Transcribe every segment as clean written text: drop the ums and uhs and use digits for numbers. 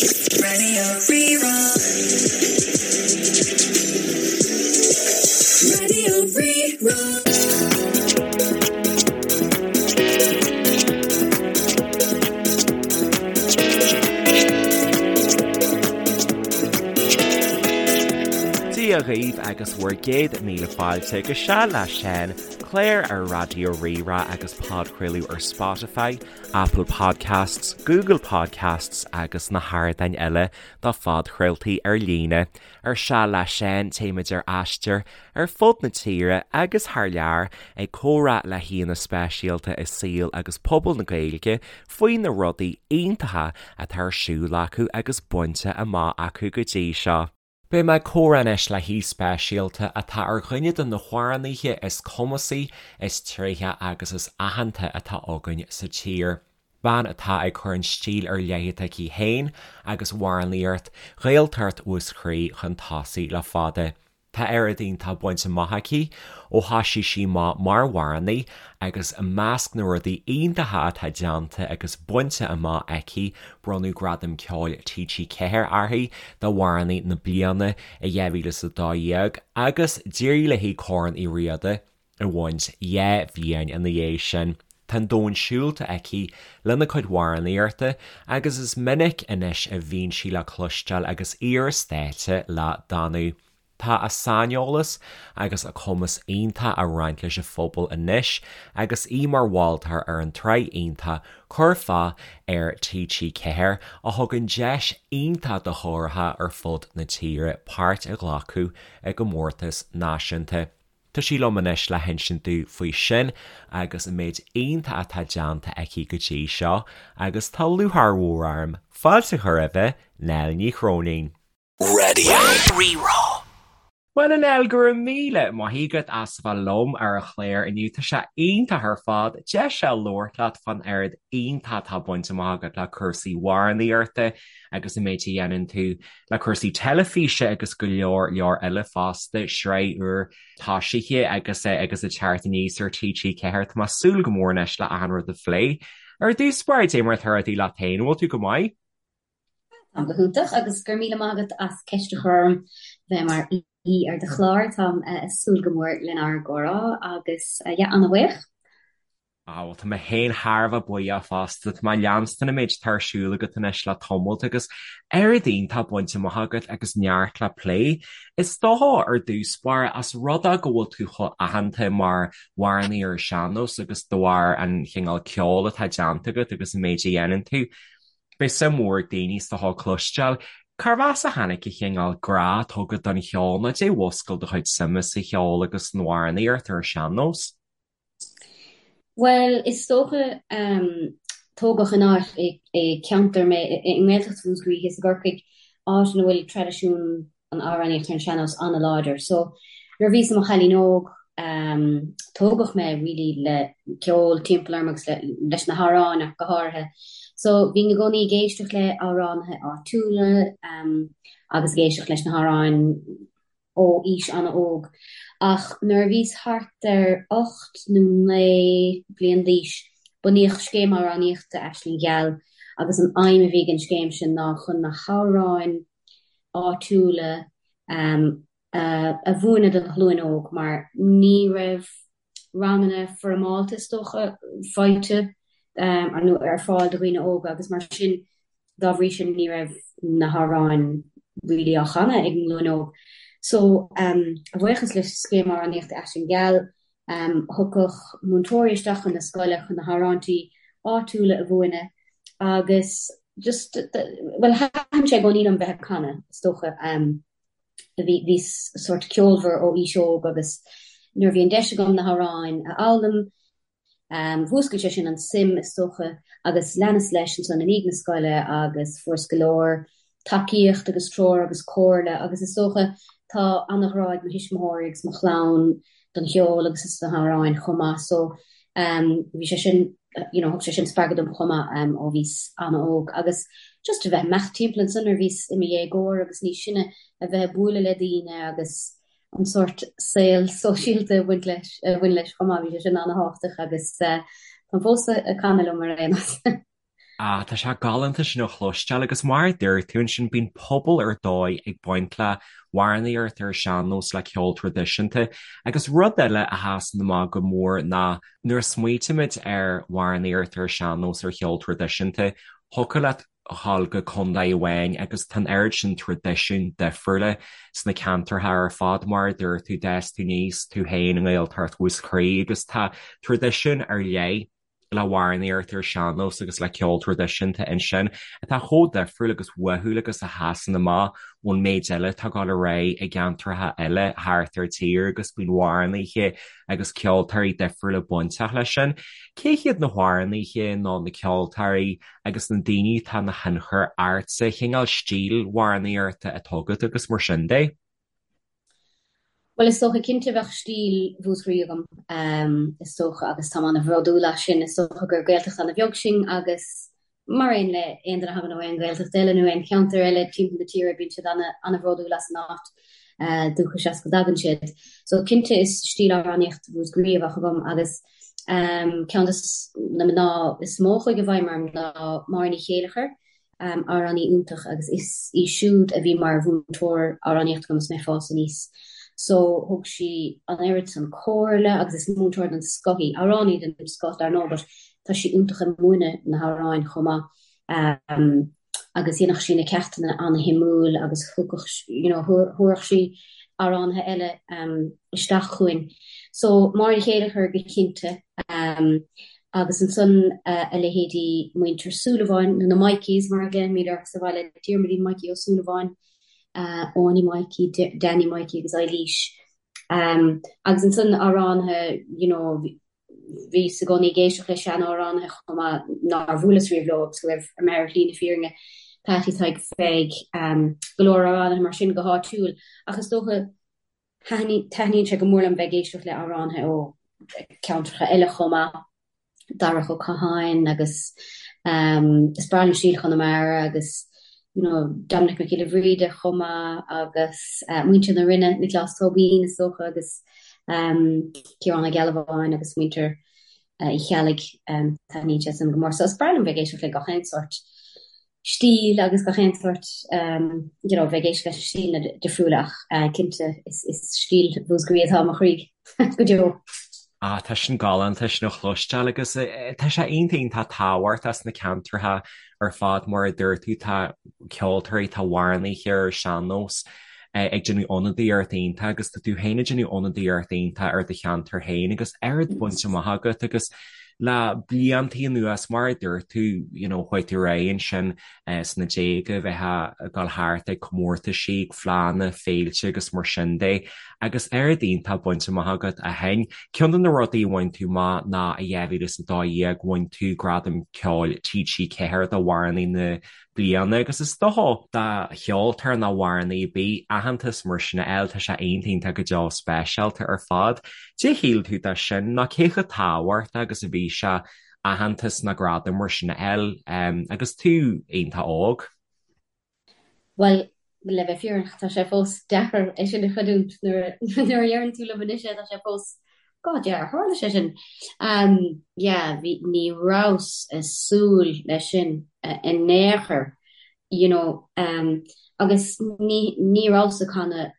Radio Rí-Rá. Radio Rí-Rá. Dia dhaoibh agus bhur gcéad míle fáilte go Seal le Seán, clár ar Raidió Rí-Rá agus podchraoladh ar Spotify, Apple Podcasts, Google Podcasts agus na hardáin eile do phodchraoltaí ar líne. Ar Seal le Seán, téimid ar aistear ar fud na tíre agus thar lear ag comhrá le haíonna speisialta i saol agus pobal na Gaeilge faoi na rudaí iontacha atá ar siúl acu agus bainte amach acu go dtí seo. Beidh mé ag comhrá anois le haoi speisialta atá ar dhuine de na hamhránaithe is cumasaí, is tréithe agus is aitheanta atá againn sa tír. Bean atá ag cur an stíl ar leith atá aici féin agus amhránaíocht Ghaeltacht Mhúscraí chun tosaigh le fada. Tá oiread iontach bainte amach aici ó thoisigh sí amach mar amhránaí agus i measc na rudaí iontacha atá déanta agus bainte amach aici bronnadh Gradam Ceoil TG4 uirthi d'Amhránaí na Bliana i 2012 agus d'éirigh léi Corn Uí Riada a bhaint dhá bhliain ina dhiaidh sin. Tá an domhan siúlta aici lena cuid amhránaíochta agus is minic anois a bhíonn sí le cloisteáil agus í ar stáitse le Danú. Tá a saineolas agus a cumas iontach á roinnt leis an phobal anois agus í mar mholtóir ar an tsraith iontach Curfá ar TG4 a thugann deis iontach do chóracha ar fud na tíre páirt a ghlacadh i gcomórtas náisiúnta. Tá sí liom anois le hinsint domh faoi sin agus an méid iontach atá déanta aici go dtí seo agus tá lúcháir mhór orm fáilte a chur roimhe, Nell Ní Chróinín. Radio Rí-Rá. Bhuel a Nell, go raibh míle maith agat as a bheith liom ar an chlár inniu. Tá sé iontach ar fad deis a labhairt leat fán oiread iontach atá bainte amach agat le cúrsaí amhránaíochta agus an méid a dhéanann tú le cúrsaí teilifíse agus go leor leor eile fosta, sraith úr toisithe agus agus ag teacht aníos ar TG4. Tá mé ag súil go mór anois le achan rud a phlé. Ar dtús báire, dé mar atá rudaí leat féin, an bhfuil tú go maith? Táim go hiontach agus go raibh míle maith agat as ceist a chur orm bheith mar aoi ar do chlár. Táim ag súil go mór lenár gcomhrá agus yeah, an-bhuíoch. Ah, bhuel, tá mé féin thar a bheith buíoch fosta. Tá mé ag leanstan an méid atá ar siúl agat anois le tamalt agus oiread iontach bainte amach agat agus neart le plé. Is dócha ar dtús báire, as rud é go bhfuil tú chomh aitheanta mar amhránaí ar an sean-nós agus de bharr an chineál ceoil atá déanta agat agus an méid a dhéanann tú, beidh suim mhór ag daoine is dócha cloisteáil cárbh as a tháinig an chineál grá atá agat don cheol nó dé mhúscail do chuid suime sa cheol agus san amhránaíocht ar an sean-nós. Bhuel, is dócha, tógadh in áit, i gceantar mé, i nGaeltacht Mhúscraí thíos i gCorcaigh, áit ina bhfuil traidisiún an amhránaíocht ar an sean-nós an-láidir. So, nuair a bhíos i mo chailín óg, tógadh mé really le ceol timpeall orm agus leis na hamhráin ach go háirithe. So, bhínn i gcónaí ag éisteacht le amhránaithe áitiúla agus ag éisteacht leis na hamhráin ó aois an-óg, ach nuair a bhíos thart ar 8 nó 9 bliain d'aois, bunaíodh Scéim Amhránaíochta Aisling Gheal agus an aidhm a bhí ag an scéim sin ná chun na hamhráin áitiúla a mhúineadh don ghlúin óg mar ní raibh ranganna foirmeálta is dócha faighte nó ar fáil do dhaoine óga agus mar sin dá bhrí sin ní raibh na hamhráin really á chanadh ag an nglúin óg. So a bhuíochas le Scéim Amhránaíochta Aisling Gheal thiocfadh múinteoirí isteach chun na scoile chun na hamhráintí áitiúla a mhúineadh agus just bhuel thaitin sé i gcónaí liom bheith ag canadh is dócha. Bhíos sórt ceolmhar ó aois óg agus nuair a bhí an deis agam na hamhráin a fhoghlaim, mhúscail sé sin an suim is dócha agus leanas leis ansan i ndiaidh na scoile agus fuaireas go leor tacaíocht agus treoir agus comhairle agus is dócha tá an-ghrá ag mo thuismitheoirí agus mo chlann don cheol agus is do na hamhráin chomh maith so bhí sé sin you know thug sé sin spreagadh dom chomh maith ó bhíos an-óg agus just a bheith ag imeacht timpeall ansan nuair a bhíos i mo dhéagóir agus níos sine a bheith ag bualadh le daoine agus an sórt saol sóisialta a bhaint leis a bhain leis chomh maith bhí sé sin an-thábhachtach agus táim fós ag canadh liom ar aon nós. Ah, tá sé galánta sin a chloisteáil agus mar a dúirt tú ansin, bíonn pobal ar dóigh ag baint le hamhránaíocht ar an sean-nós le ceol traidisiúnta agus rud eile a sheasann amach go mór ná nuair a smaoitímid ar amhránaíocht ar an sean-nós ar cheol traidisiúnta, thiocfadh leat a ghabháil go contae amháin agus tá an oiread sin traidisiún difriúla sna ceantracha ar fad. Mar a dúirt tú, d'fhás tú aníos tú féin i nGaeltacht Mhúscraí agus tá traidisiún ar leith le hamhránaíocht ar sean-nós agus le ceol traidisiúnta ansin atá chomh difriúil agus uathúil agus a sheasann amach ón méid eile atá ag dul ar aghaidh i gceantracha eile thart ar tír agus bíonn amhránaithe agus ceoltóirí difriúla bainteach leis sin. Cé hiad na hamhránaithe nó na ceoltóirí agus na daoine atá ina thionchar ortsa, cineál stíl amhránaíochta atá agat agus mar sin de? Bhuel, is dócha, cinnte bheadh stíl Mhúscraí agam, is dócha, agus táim an-bhródúil as sin. Is dócha gur Gaeltacht an-bheag sinn agus mar aon le aon duine a thagann ó aon Ghaeltacht eile nó aon cheantar eile timpeall na tíre, bíonn siad an-bhródúil as an áit dúchais as go dtagann siad. So cinnte is stíl amhránaíocht Mhúscraí a bheadh agam agus ceann de na mná is mó a chuaigh i bhfeidhm orm ná Máire Ní Chéileachair. amhránaí iontach agus is í siúd a bhí mar mhúinteoir amhránaíochta agam is mé ag fás aníos. So thug sí an oiread san comhairle agus is múinteoir den scoth í, amhránaí den scoth dar ndóigh but tá sí iontach ag múineadh na hamhráin chomh maith. Agus dhéanfadh sí na ceachtanna ana-shuimiúil agus thugadh, you know, thabharfadh sí amhránaithe eile isteach chugainn. So Máire Ní Chéileachair go cinnte. Agus ansan a leithéidí Muintir Súilleabháin, nó na Mikeys mar a ghlaoimid orthu sa bhaile, Diarmuidín Mikey Ó Súilleabháin, Áine Mikey, Danny Mikey agus Eilís. Agus ansan amhránaithe, you know, bhíos i gcónaí ag éisteacht le sean-amhránaithe chomh maith nár bhuaileas riamh leo agus go raibh orm ar shlí na fírinne, Patty Thaidhg Pheig, go leor amhránaithe mar sin go háitiúil. Ach is dócha Taitníonn sé go mór liom bheith ag éisteacht le amhránaithe ó cheantracha eile chomh maith, Darach Ó Catháin agus is breá liom stíl Chonamara agus you know Dominic Mac Giolla Bhríde chomh maith agus muintir na Rinne, Nioclás Tóibín is dócha agus Ciarán Ó Gealbháin agus muintir Uí Cheallaigh, taitníonn sé sin go mór. So is breá liom bheith ag éisteacht le gach aon sórt. stíl agus gach aon sórt you know bheith ag éisteacht leis na stíleanna difriúla ach cinnte is stíl Mhúscraí atá i mo chroí go deo. Ah, tá sin galánta sin a chloisteáil agus tá sé iontach iontach tábhachtach sna ceantracha ar fad mar a dúirt tú tá ceoltóirí, tá amhránaithe ar sean-nós ag déanamh ionadaíocht iontach agus tá tú féin ag déanamh ionadaíocht iontach ar do cheantar féin agus oiread bainte amach agat agus Le bliantaí anuas, mar a dúirt tú, you know, chuaigh tú ar aghaidh ansin sna déaga, bheith ag dul thart ag comórtaisí, ag fleánna, féilte agus mar sin de, agus oiread iontach bainte amach agat ó shin. Ceann de na rudaí a bhain tú amach ná i 2012 bhain tú Gradam Ceoil TG4 d'Amhránaí na bliana agus is dócha do cheoltóir nó amhránaí ar bith aitheantas mar sin a fháil, tá sé iontach iontach go deo speisialta ar fad. Cad é a shíl tú de sin nó cé chomh tábhachtach agus a bhí sé aitheantas nó gradam mar sin a fháil agus tú iontach óg? Bhuel, le bheith fírinneach, tá sé fós deacair é sin a chreidiúint nuair a deireann tú liom anois é, tá sé fós God yeah, ar tharla sé sin? Yeah, bhí, ní rabhas ag súil leis sin in aon chor, you know, agus ní, ní rabhas ag canadh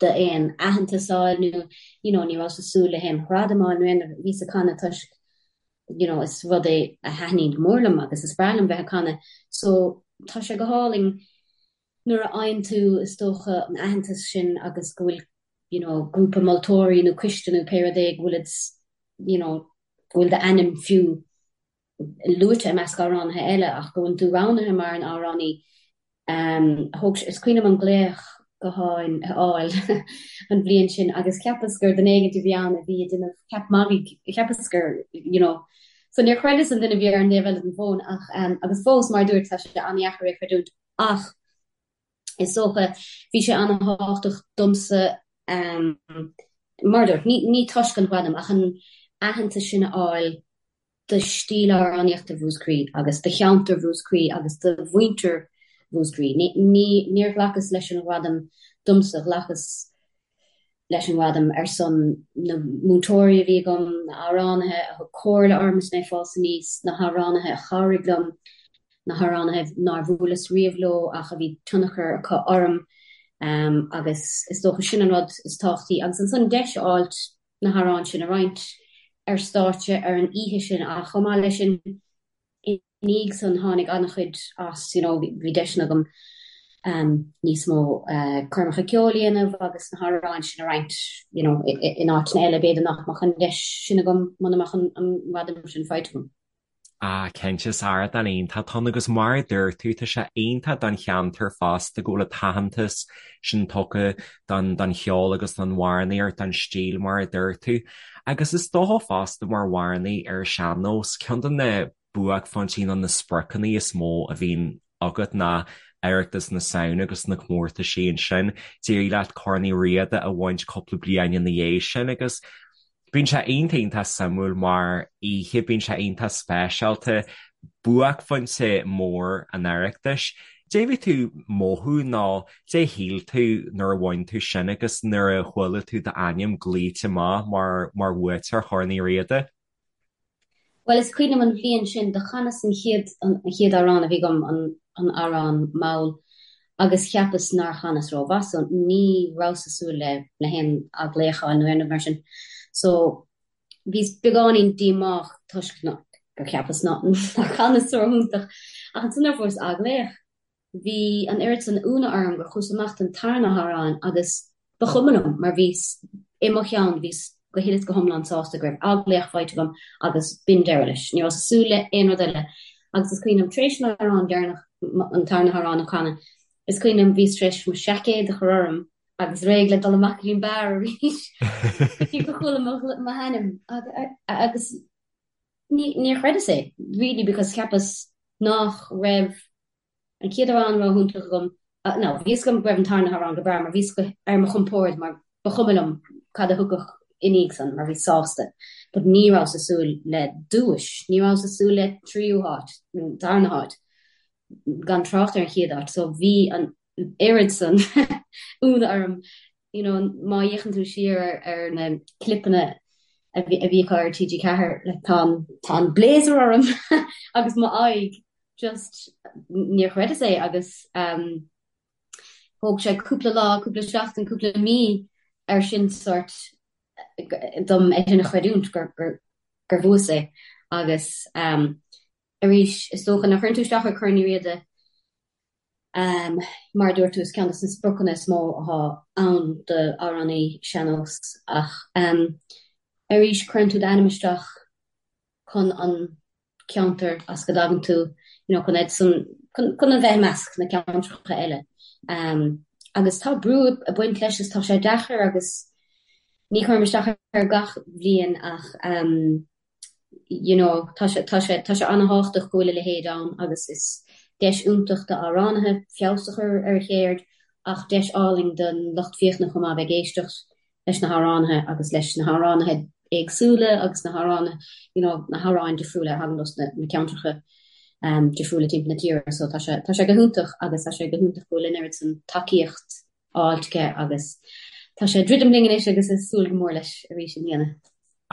d'aon aitheantas a fháil nó, you know, ní rabhas ag súil le haon ghradam a fháil nó aon, bhíos ag canadh toisc, you know, is rud é a thaitníonn go mór liom agus is breá liom bheith ag canadh. So, tá sé go hálainn nuair a fhaigheann tú, is dócha, an aitheantas sin agus go bhfuil, you know, grúpa moltóirí nó coiste nó pé rud é go bhfuil you know, go bhfuil d'ainm fiú luaite i measc amhránaithe eile ach go bhfuil tú roghnaithe mar an amhránaí. Um, thóg, is cuimhin liom an glaoch gutháin a fháil an bhliain sin agus cheapas gur duine éigin a bhí ann a bhí ag déanamh ceap magaidh, cheapas gur, you know, so níor chreideas an duine a bhí ar an dtaobh eile den bhfón ach um, agus fós mar a dúirt tá sé an-dheacair é a chreidiúint ach is dócha bhí sé an-thábhachtach domsa um, mar a dúirt, ní, ní toisc an ghradam ach an aitheantas sin a fháil do stíl amhránaíochta Mhúscraí agus do cheantar Mhúscraí agus do mhuintir Mhúscraí. Ní, ní, níor ghlacas leis an ghradam domsa, ghlacas leis an ngradam ar son na múinteoirí a bhí agam, na hamhránaithe a thug comhairle orm is mé ag fás aníos, na hamhránaithe a chabhraigh liom. na hamhránaithe nár bhuaileas riamh leo ach a bhí tionchar acu orm agus is dócha sin an rud is tábhachtaí. Agus ansan deis a fháilt na hamhráin sin a roinnt ar stáitse ar an oíche sin ach chomh maith leis sin i ndiaidh san tháinig an-chuid as, you know, bhí deiseanna agam níos mó coirmeacha ceoil a dhéanamh agus na hamhráin sin a roinnt, you know, in áiteanna eile, b'fhéidir nach mbeadh an deis sin agam muna mbeadh an gradam sin faighte agam. Ah, cinnte, is ardán iontach atá ann agus mar a dúirt tú, tá sé iontach don cheantar fosta go bhfuil an t-aitheantas sin tugtha don don cheol agus don amhránaíocht, don stíl mar a dúirt tú. Agus is dócha fosta mar amhránaí ar an sean-nós, ceann de na buaicphointí nó na spriocanna is mó a bhíonn agat ná Oireachtas na Samhna agus na comórtaisí ansin. D'éirigh leat Corn Uí Riada a bhaint cúpla bliain ina dhiaidh sin agus bíonn sé iontach iontach suimiúil mar oíche, bíonn sé iontach speisialta, buaicphointe mór an Oireachtais. Cad é bhí tú ag mothú nó cad é shíl tú nuair a bhain tú sin agus nuair a chuala tú d'ainm glaoite amach mar mar bhuaiteoir Chorn Uí Riada? Bhuel, is cuimhin liom an bhliain sin, do chanas an chéad, an chéad amhrán a bhí agam, an, an amhrán mall, agus cheapas nár chanas rómhaith, so ní rabhas ag súil le, le haon athghlaoch a fháil nó aon rud mar sin. So, bhíos beagáinín díomách toisc ná, gur cheapas ná, nár chanas ró-iontach. Ach ansan nuair a fuaireas athghlaoch, Bhí an oiread san ionadh orm gur chuas amach don tarna hamhrán agus ba chuma liom mar bhíos, i mo cheann, bhíos go huile is go hiomlán sásta go raibh athghlaoch faighte agam agus b'in deireadh leis. Ní rabhas ag súil le aon rud eile agus is cuimhin liom tar éis an amhrán deireanach, an tarna hamhrán a chanadh, is cuimhin liom bhíos tar éis mo seaicéad a chur orm agus réidh le dul amach go dtí an beár arís go dtí go chuala m'ainm agus níor chreideas é really because cheapas nach raibh an chéad amhrán ró-iontach agam, no, bhí fhios agam go raibh an tarna hamhrán go breá mar bhíos ar mo chompord mar ba chuma liom cad a thiocfadh i ndiaidh san mar bhíos sásta but ní rabhas ag súil le duais, ní rabhas ag súil le tríú háit nó darna háit gan trácht ar an chéad áit so bhí an oiread san ionadh orm you know má fhéachann tú siar ar ar na clipeanna a bhí a bhí acu ar TG4 like tá an tá an blazer orm agus m'aghaidh just níor chreideas é agus um, thóg sé cúpla lá, cúpla seachtain, cúpla mí ar sin sort dom é sin a chreidiúint gur, gur, gur bhuas é agus um, arís is dócha nuair a chuireann tú isteach ar Corn Uí Riada um, mar a dúirt tú is ceann de na spriocanna is mó atá ann d'amhránaí sean-nós ach um, arís cuireann tú d'ainm isteach chun an ceantar as go dtagann tú, you know, chun iad san, chun, chun a bheith i measc na ceantracha eile. Um, agus tá brú ag baint leis is tá sé deacair agus ní chuirim isteach air gach bhliain ach um, you know, tá sé, tá sé, tá sé an-thábhachtach go bhfuil a leithéid ann agus is deis iontach d'amhránaithe feabhas a chur ar a cheird ach deis álainn don lucht féachana chomh maith bheith ag éisteacht leis na hamhránaithe agus leis na hamhránaithe éagsúla agus na hamhránaithe, you know, na hamhráin difriúla a thagann os na, na ceantracha um, difriúla timpeall na tíre. So tá sé, tá sé go hiontach agus tá sé go hiontach go bhfuil an oiread san tacaíocht á fháilt aige agus tá sé ag druidim linn anois agus ag súil go mór leis arís i mbliana.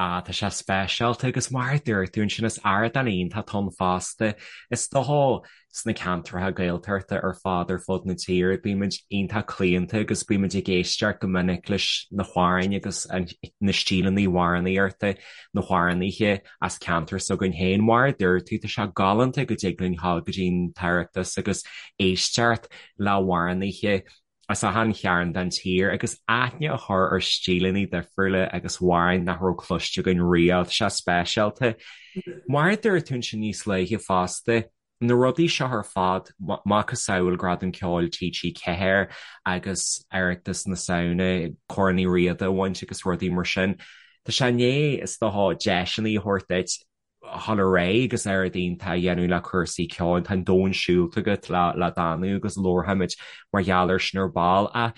Ah, tá sé speisialta agus mar a dúirt tú ansin is ardán iontach atá ann fosta. Is dócha sna ceantracha Gaeltachta ar fad ar fud na tíre bímid iontach claonta agus bímid ag éisteacht go minic leis na hamhráin agus na stíleanna amhránaíochta, na hamhránaithe as ceantar s'againn féin. Mar a dúirt tú, tá sé galánta go dtig linn dhul go dtí an tOireachtas agus éisteacht le hamhránaithe as achan chearn den tír agus aithne a chur ar stíleanna difriúla agus amhráin nach raibh cloiste againn riamh. Tá sé speisialta. Mar a dúirt tú ansin níos luaithe fosta, na rudaí seo ar fad, macasamhail Gradam Ceoil TG4 agus Oireachtas na Samhna, Corn Uí Riada a bhaint agus rudaí mar sin, tá sé i ndiaidh, is dócha, deiseanna a thabhairt duit dhul ar aghaidh agus oiread iontach a dhéanamh le cúrsaí ceoil. Tá an domhan siúlta agat le le Danú agus labharfaimid mar gheall air sin ar ball. Ach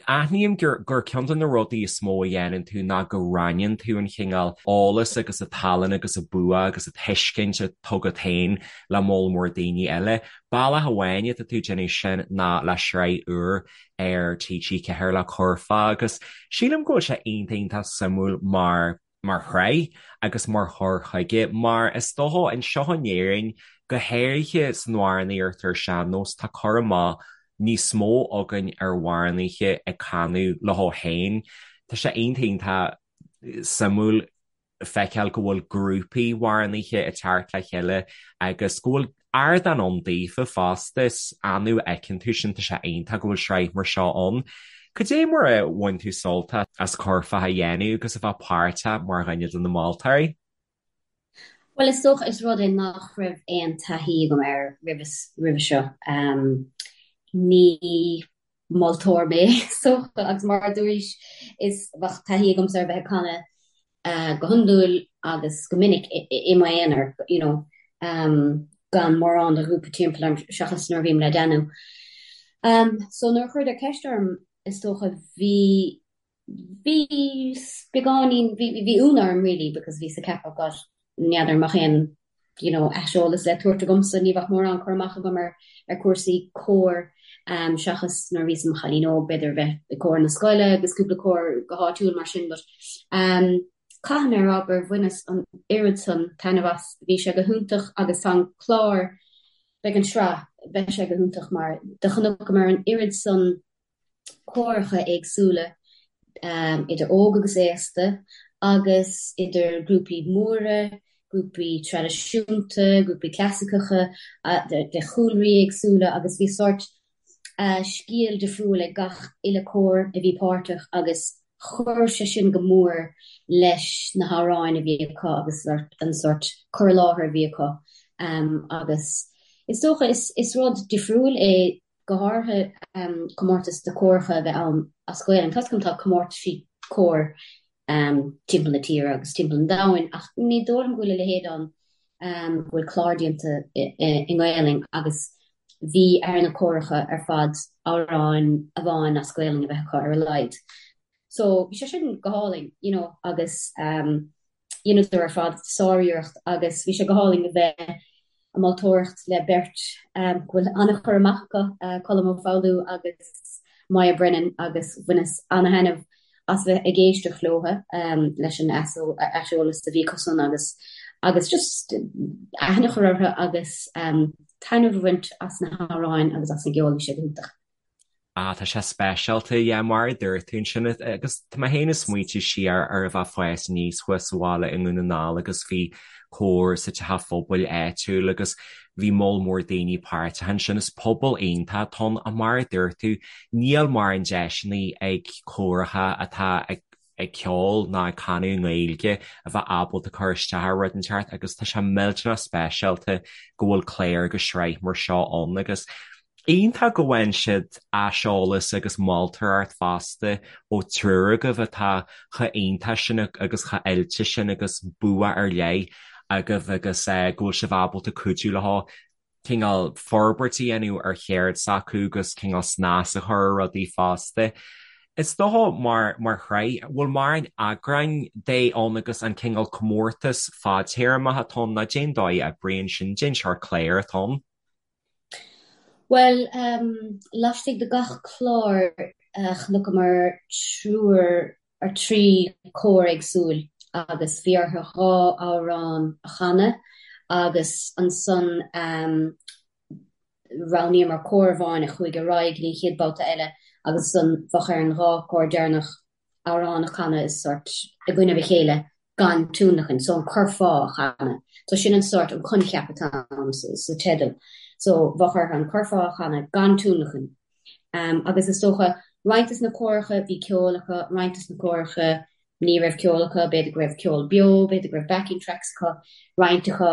aithním gur gur ceann de na rudaí is mó a dhéanann tú ná go roinneann tú an chineál eolas agus an tallann agus an bua agus an tuiscint atá agat féin le moll mór daoine eile. Bealach amháin atá tú ag déanamh sin ná le sraith úr ar TG4 le Curfá agus sílim go bhfuil sé iontach iontach suimiúil mar mar shraith agus mar chur chuige, mar is dócha anseo in Éirinn. Go háirithe san amhránaíocht ar sean-nós, tá cur amach níos mó againn ar amhránaithe ag canadh leo féin. Tá sé iontach iontach suimiúil feiceáil go bhfuil grúpaí amhránaithe ag teacht le chéile agus go bhfuil ardán ann daofa fosta. Is annamh a fheiceann tú sin, tá sé iontach go bhfuil sraith mar seo ann. Cad é mar a bhain tú sult as curfá a dhéanamh agus a bheith páirteach mar dhuine de na moltóirí? Bhuel, is dócha, is rud é nach raibh aon taithí agam air roimhe seo. Ní moltóir mé, is dócha, agus mar a dúraís, is bheadh taithí agamsa ar bheith ag canadh go hiondúil agus go minic i m'aonar, you know, gan mórán de ghrúpa timpeall orm seachas nuair a bhím le Danú. So nuair a chuireadar ceist orm, is dócha, bhí Bhí beagáinín, bhí, bhí ionadh orm really because bhíos ag ceapadh God, n'fheadar an mbeadh aon you know aiseolas le tabhairt agamsa, ní bheadh mórán cur amach agam ar, ar cúrsaí cóir seachas nuair a bhíos i mo chailín óg b'fhéidir a bheith i gcór na scoile agus cúpla cór go háitiúil mar sin but caithfidh mé a rá gur bhaineas an oiread san taitneamh as, bhí sé go hiontach agus tá an clár, beidh an sraith, beidh sé go hiontach mar do chonaiceamar an oiread san córacha éagsúla, idir óg agus aosta, agus idir grúpaí móra, grúpaí traidisiúnta, grúpaí clasaiceacha, de chúlraí éagsúla agus bhí sórt scéal difriúil ag gach uile cór a bhí páirteach agus chuir sé sin go mór leis na hamhráin a bhí acu agus an sórt cur i láthair a bhí acu agus is dócha is rud difriúil é go háirithe comórtas de córacha a bheith ann as Gaelainn. Tá 's agam tá comórtaisí cóir timpeall na tíre agus timpeall an domhain ach ní dóigh liom go bhfuil a leithéid ann go bhfuil clár déanta i nGaelainn agus bhí ar na córacha ar fad amhrán amháin as Gaelainn a bheith acu ar a laghad. So bhí sé sin go hálainn, you know, agus dheineadar ar fad sáriarracht agus bhí sé go hálainn a bheith ag moltóireacht le beirt go bhfuil an-chur amach acu, Colm Ó Foghlú agus Moya Brennan agus bhaineas an-thaitneamh as bheith ag éisteacht leo leis an aiseolas a bhí acusan agus agus just aithne a chur orthu agus taitneamh a bhaint as na hamhráin agus as an gceol, bhí sé go hiontach. Ah, tá sé speisialta, yeah, mar a dúirt tú ansin, agus tá mé féin ag smaointiú siar ar a bheith ag fás aníos thuas sa bhaile i nDún na nGall agus bhí cór sa teach phobail áitiúil agus bhí moll mór daoine páirteach ansin. Is pobal iontach atá ann ach mar a dúirt tú, níl mórán deiseanna ag córacha atá ag ag ceol ná ag canadh i nGaeilge a bheith ábalta cur isteach ar rud inteacht agus tá sé millteanach speisialta go bhfuil clár agus sraith mar seo ann agus iontach go bhfaigheann siad aiseolas agus moltóireacht fosta ó triúr agaibh atá chomh iontach sin agus chomh oilte sin agus bua ar leith agaibh agus go bhfuil sibh ábalta cuidiú leo cineál forbairt a dhéanamh ar cheird s'acu agus cineál snas a chur ar rudaí fosta. Is dócha mar mar shraith, bhfuil mórán eagráin de ann agus an cineál comórtas fadtéarmach atá ann nó cén dóigh a oibríonn sin, cén seort cláir atá ann? Bhuel, laistigh de gach clár chonaiceamar triúr ar 3 cór éagsúil agus bhí orthu 2 amhrán a chanadh agus ansan roghnaíomar cór amháin a chuaigh ar aghaidh go dtí an chéad babhta eile agus ansan bheadh ar an 2 cór deireanach amhrán a chanadh is sort i gcoinnibh a chéile gan tionlacan, so an curfá a chanadh. So sin an sort, an coincheap atá ann sa teideal. So bheadh orthu an curfá a chanadh gan tionlacan. Agus is dócha, roinnt des na córacha bhí ceol acu, roinnt des na córacha ní raibh ceol acu, b'fhéidir go raibh ceol beo, b'fhéidir go raibh backing tracks acu, roinnt acu,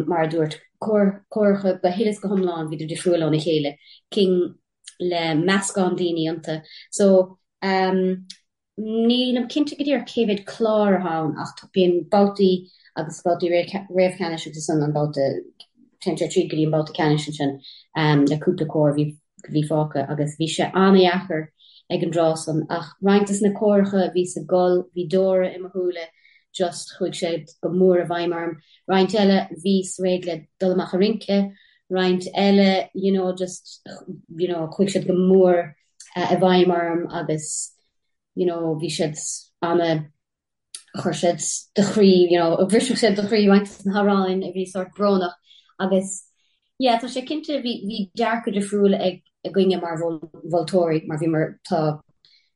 mar a dúirt, córacha go huile is go hiomlán, bhíodar difriúil óna chéile, cinn le meascán daoine iontu. So, Nílim cinnte go díreach cé mhéad clár atá ann ach bíonn babhtaí agus babhtaí réamhcheannais agus ansan an babhta, téann sé tríd go dtí an babhta ceannais ansin le cúpla cór a bhí fágtha agus bhí sé an-dheacair ag an dtráth san ach roinnt des na córacha a bhíos ag gol, bhí deora i mo shúile just chuaigh sé go mór i bhfeidhm orm. Roinnt eile bhíos réidh le dul amach a rince, roinnt eile you know just you know chuaigh siad go mór i bhfeidhm orm agus you know bhí siad ana chuir siad do chroí you know bhrisfeadh siad do chroí roinnt des na hamhráin a bhí sórt brónach. Agus yeah, tá sé cinnte, bhí, bhí dearcadh difriúil ag, againne mar mholtóirí mar bhíomar, tá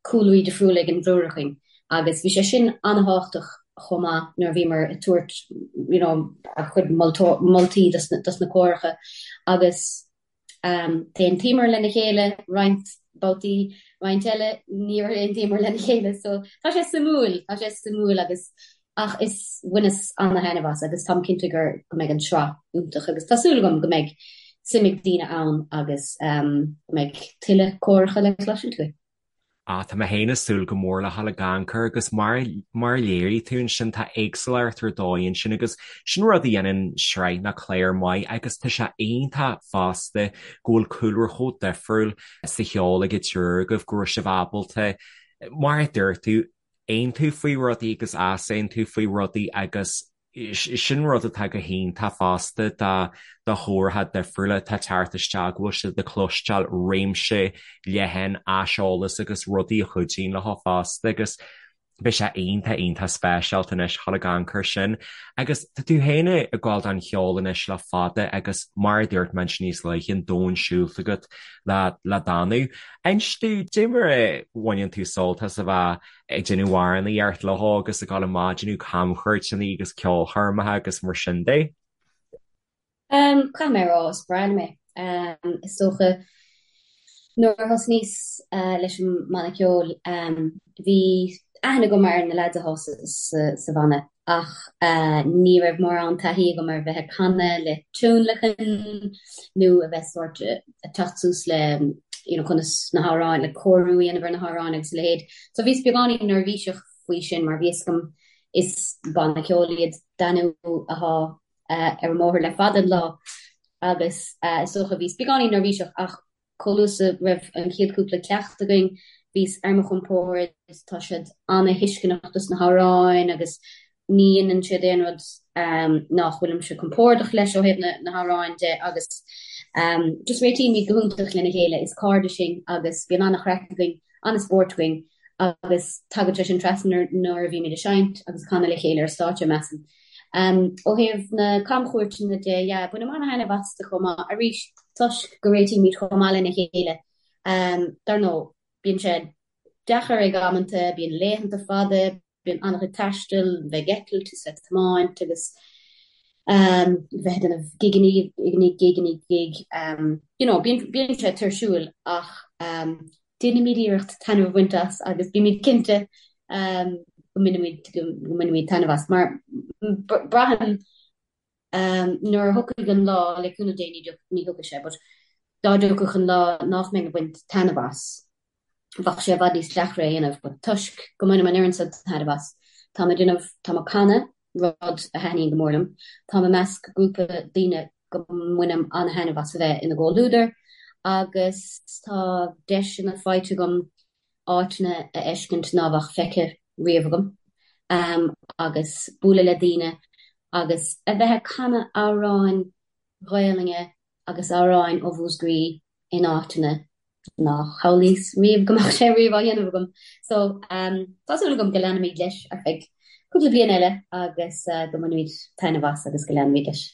cúlraí difriúla ag an dtriúr againn agus bhí sé sin an-thábhachtach chomh maith nuair a bhíomar ag tabhairt you know ár gcuid moltaí dos na córacha agus d'aontaíomar lena chéile roinnt babhtaí, roinnt eile níor aontaíomar lena chéile so tá sé suimiúil, tá sé suimiúil agus ach is bhaineas ana-thaitneamh as agus táim cinnte gur go mbeidh an tsraith iontach agus tá súil agam go mbeidh suim ag daoine ann agus go mbeidh tuilleadh córacha le cloisint uaidh. Ah, tá mé féin ag súil go mór le dhul ag amharc air agus mar mar a léirigh tú ansin tá éagsúlacht ar dóigh ansin agus sin rud a dhéanann sraith nó clár maith agus tá sé iontach fosta go bhfuil cúlra chomh difriúil sa cheol ag an triúr agaibh go raibh sibh ábalta mar a dúirt tú aontú faoi rudaí agus easaontú faoi rudaí agus sin rud atá go hiontach fosta do do chóracha difriúla atá ag teacht isteach go bhfuil siad ag cloisteáil réimse leathan aiseolas agus rudaí a chuidíonn leo fosta agus beidh sé iontach iontach speisialta anois dhul ag amharc air sin. Agus tá tú féin ag gabháil don cheol anois le fada agus mar a dúirt mé ansin níos luaithe an domhan siúlta agat le le Danú. Inis dúinn, cad é mar a bhaineann tú sult as a bheith ag déanamh amhránaíocht leo agus ag dul amach ag déanamh camchuairteanna agus ceolchoirmeacha agus mar sin de? Caithfidh mé a rá, is breá liom é. Is dócha nuair a thosnaíos leis an mbanna ceoil, bhí aithne agam ar na leaids atá sa bhanna ach ní raibh mórán taithí agam ar bheith ag canadh le tionlacan nó a bheith sórt ag teacht suas le you know conas na hamhráin, le cóiriú a dhéanamh ar na hamhráin agus a leithéid. So bhíos beagáinín neirbhíseach faoi sin mar bhí fhios agam is banna ceoil iad Danú athá ar an mbóthar le fada an lá agus is dócha bhíos beagáinín neirbhíseach ach Chomh luath is a raibh an chéad chúpla ceacht againn, bhíos ar mo chompord, tá siad ana-thuisceanach dos na hamhráin agus ní dhéanann siad aon rud nach bhfuilimse compordach leis ó thaobh na hamhráin de agus just réitímid go hiontach lena chéile, is cairde sinn agus bíonn ana-chraic againn, ana-spórt againn agus tagann sé sin trasna nuair a bhímid ag seinnt agus ag canadh le chéile ar stáitse, measaim. Ó thaobh na camchuairteanna de, yeah, bainim ana-thaitneamh astu chomh maith, arís, toisc go réitímid chomh maith lena chéile. Dar ndóigh, bíonn sé deacair ag amanta, bíonn laethanta fada, bíonn an-chuid taistil, bheith ag eitilt is ag tiomáint agus bheith ag déanamh gig i ndiaidh gig i ndiaidh gig. You know, bíonn, bíonn sé tuirsiúil ach déanaimid iarracht taitneamh a bhaint as agus bímid cinnte go mbainimid, go mbainimid taitneamh as mar braithim nuair a thiocfaidh an lá, le cúnamh Dé ní thiocfaidh sé, but dá dtiocfadh an lá nach mbeinn ag baint taitneamh as, bheadh sé i bhfad níos deacra a dhéanamh, but toisc go mbainim an oiread san taitneamh as, táim ag déanamh, táim ag canadh, rud a thaitníonn go mór liom, táim i measc grúpa daoine go mbainim an-thaitneamh as a bheith ina gcomhluadar agus tá deiseanna faighte agam áiteanna a fheiscint ná bheadh feicthe riamh agam agus bualadh le daoine agus a bheith ag canadh amhráin Ghaelainne agus amhráin ó Mhúscraí in áiteanna nár shamhlaíos riamh go mbeadh sé riamh á dhéanamh agam. So, tá súil agam go leanfaimid leis ar feadh cúpla bliain eile agus go mbainfimid taitneamh as agus go leanfaimid leis.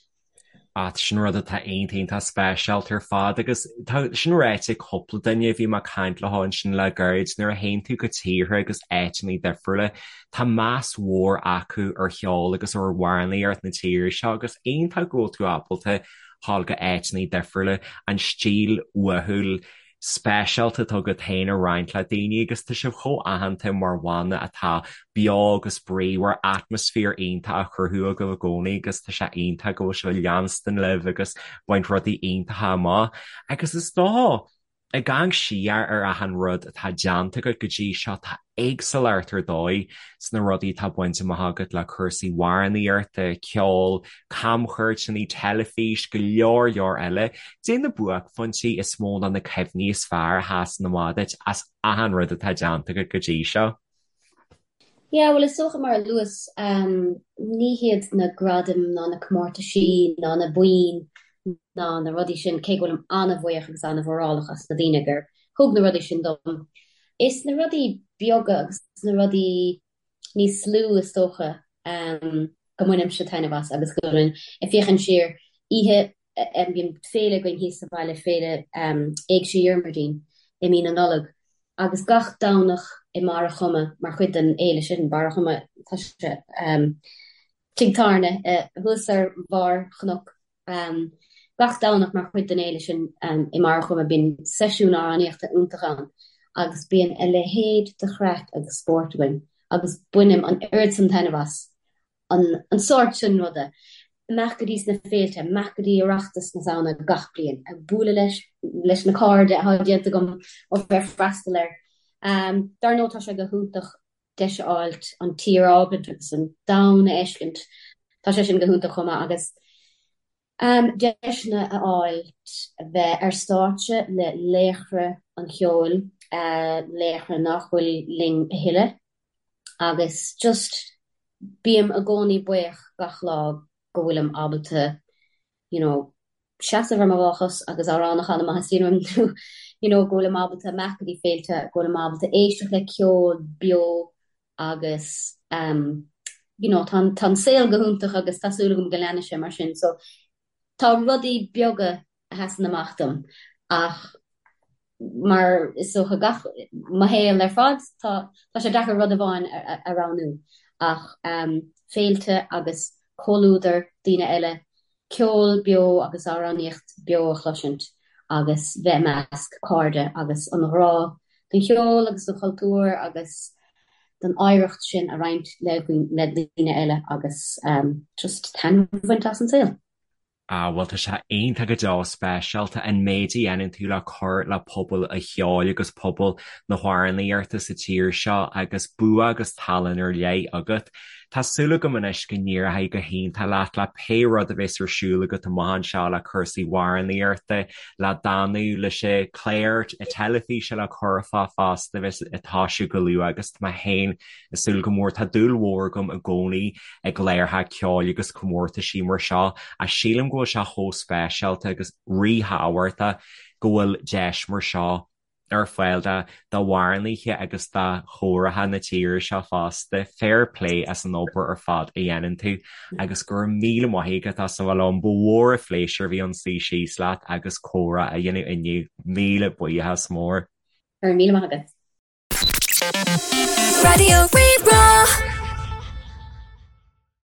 Ah, sin rud atá iontach iontach speisialta ar fad agus tá sin ráite ag cúpla duine a bhí mé ag caint leo ansin le gairid, nuair a théann tú go tíortha agus áiteanna difriúla, tá meas mhór acu ar cheol agus ar amhránaíocht na tíre seo agus iontach go bhfuil tú ábalta dhul go áiteanna difriúla, an stíl uathúil speisialta atá agat féin a roinnt le daoine agus tá sibh chomh aitheanta mar bhanna atá beo agus bríomhar, atmaisféar iontach á chruthú agaibh i gcónaí agus tá sé iontach go bhfuil sibh ag leanstan libh agus baint rudaí iontacha amach agus is dócha ag amharc siar ar achan rud atá déanta agat go dtí seo tá éagsúlacht ar dóigh sna rudaí atá bainte amach agat le cúrsaí amhránaíochta, ceol, camchuairteanna, teilifís, go leor leor eile. Cad é na buaicphointí is mó ná na cuimhní is fearr a sheasann amach duit as achan rud atá déanta agat go dtí seo? Yeah, bhuel is dócha mar a luas, ní hiad na gradaim ná na comórtaisí ná na boinn ná na rudaí sin, cé go bhfuilim an-bhuíoch agus an-mhórálach as na daoine gur thug na rudaí sin dom. Is na rudaí beaga agus na rudaí níos lú is dócha go mbainimse taitneamh as agus go bhfuilim ag féachaint siar. Oíche, bíonn féile againn thíos sa bhaile, féile Éigse Dhiarmuidín i mí na Nollag agus gach Domhnach i mBarr a' Choma mar chuid den fhéile sin, Barr a' Choma, tá sé tigh tábhairne thuas ar bharr chnoc. Gach Domhnach mar chuid den fhéile sin i mBarr a' Choma bíonn seisiún amhránaíochta iontach ann agus bíonn a leithéid de chraic agus spórt againn agus bainim an oiread san taitneamh as an sórt sin ruda. Imeacht go dtí sna féilte, imeacht go dtí Oireachtas na Samhna gach bliain, ag bualadh leis leis na cairde atá déanta agam ó bheith ag freastal air. Dar ndóigh tá sé go hiontach deis a fháilt an tír a fhágaint agus an domhan a fheiscint, tá sé sin go hiontach chomh maith agus deiseanna a fháilt bheith ar stáitse le laochra an cheoil, laochra nach bhfuil linn a thuilleadh agus just bím i gcónaí buíoch gach lá go bhfuilim ábalta you know, seasamh ar mo dhá chos agus amhrán a chanadh má theastaíonn uaim nó you know, go bhfuilim ábalta imeacht go dtí féilte, go bhfuilim ábalta éisteacht le ceol beo agus um, you know, tá, tá an saol go hiontach agus tá súil agam go leanfaidh sé mar sin. So tá rudaí beaga a sheasann amach dom ach mar is dócha gach, mo shaol ar fad, tá tá sé deacair rud amháin a roghnú ach féilte agus comhluadar daoine eile, ceol beo agus amhránaíocht beo a chloisint agus bheith i measc cairde agus an ghrá don cheol agus don chultúr agus don oidhreacht sin a roinnt le le daoine eile agus just taitneamh a bhaint as an saol. Ah, bhuel, tá sé iontach go deo speisialta an méid a dhéanann tú le cur le pobal an cheoil agus pobal na hamhránaíochta sa tír seo agus bua agus tallann ar leith agat. Tá súil agam anois go n-éireoidh go hiontach leat le pé rud a bheas ar siúl agat amach anseo le cúrsaí amhránaíochta, le Danú, leis an chlár teilifíse le Curfá fosta a bheas ag toisiú go luath agus tá mé féin ag súil go mór. Tá dúil mhór agam i gcónaí i gcláracha ceoil agus comórtaisí mar seo ach sílim go bhfuil sé chomh speisialta agus ríthábhachtach go bhfuil deis mar seo ar fáil d'amhránaithe agus do chóraithe na tíre seo fosta. Fair play as an obair ar fad a dhéanann tú agus go raibh míle maith agat as a bheith liom. Ba mhór an phléisiúr a bhí ann suí síos leat agus comhrá a dhéanamh inniu. Míle buíochas mór. Go raibh míle maith agat. Raidió Rí-Rá.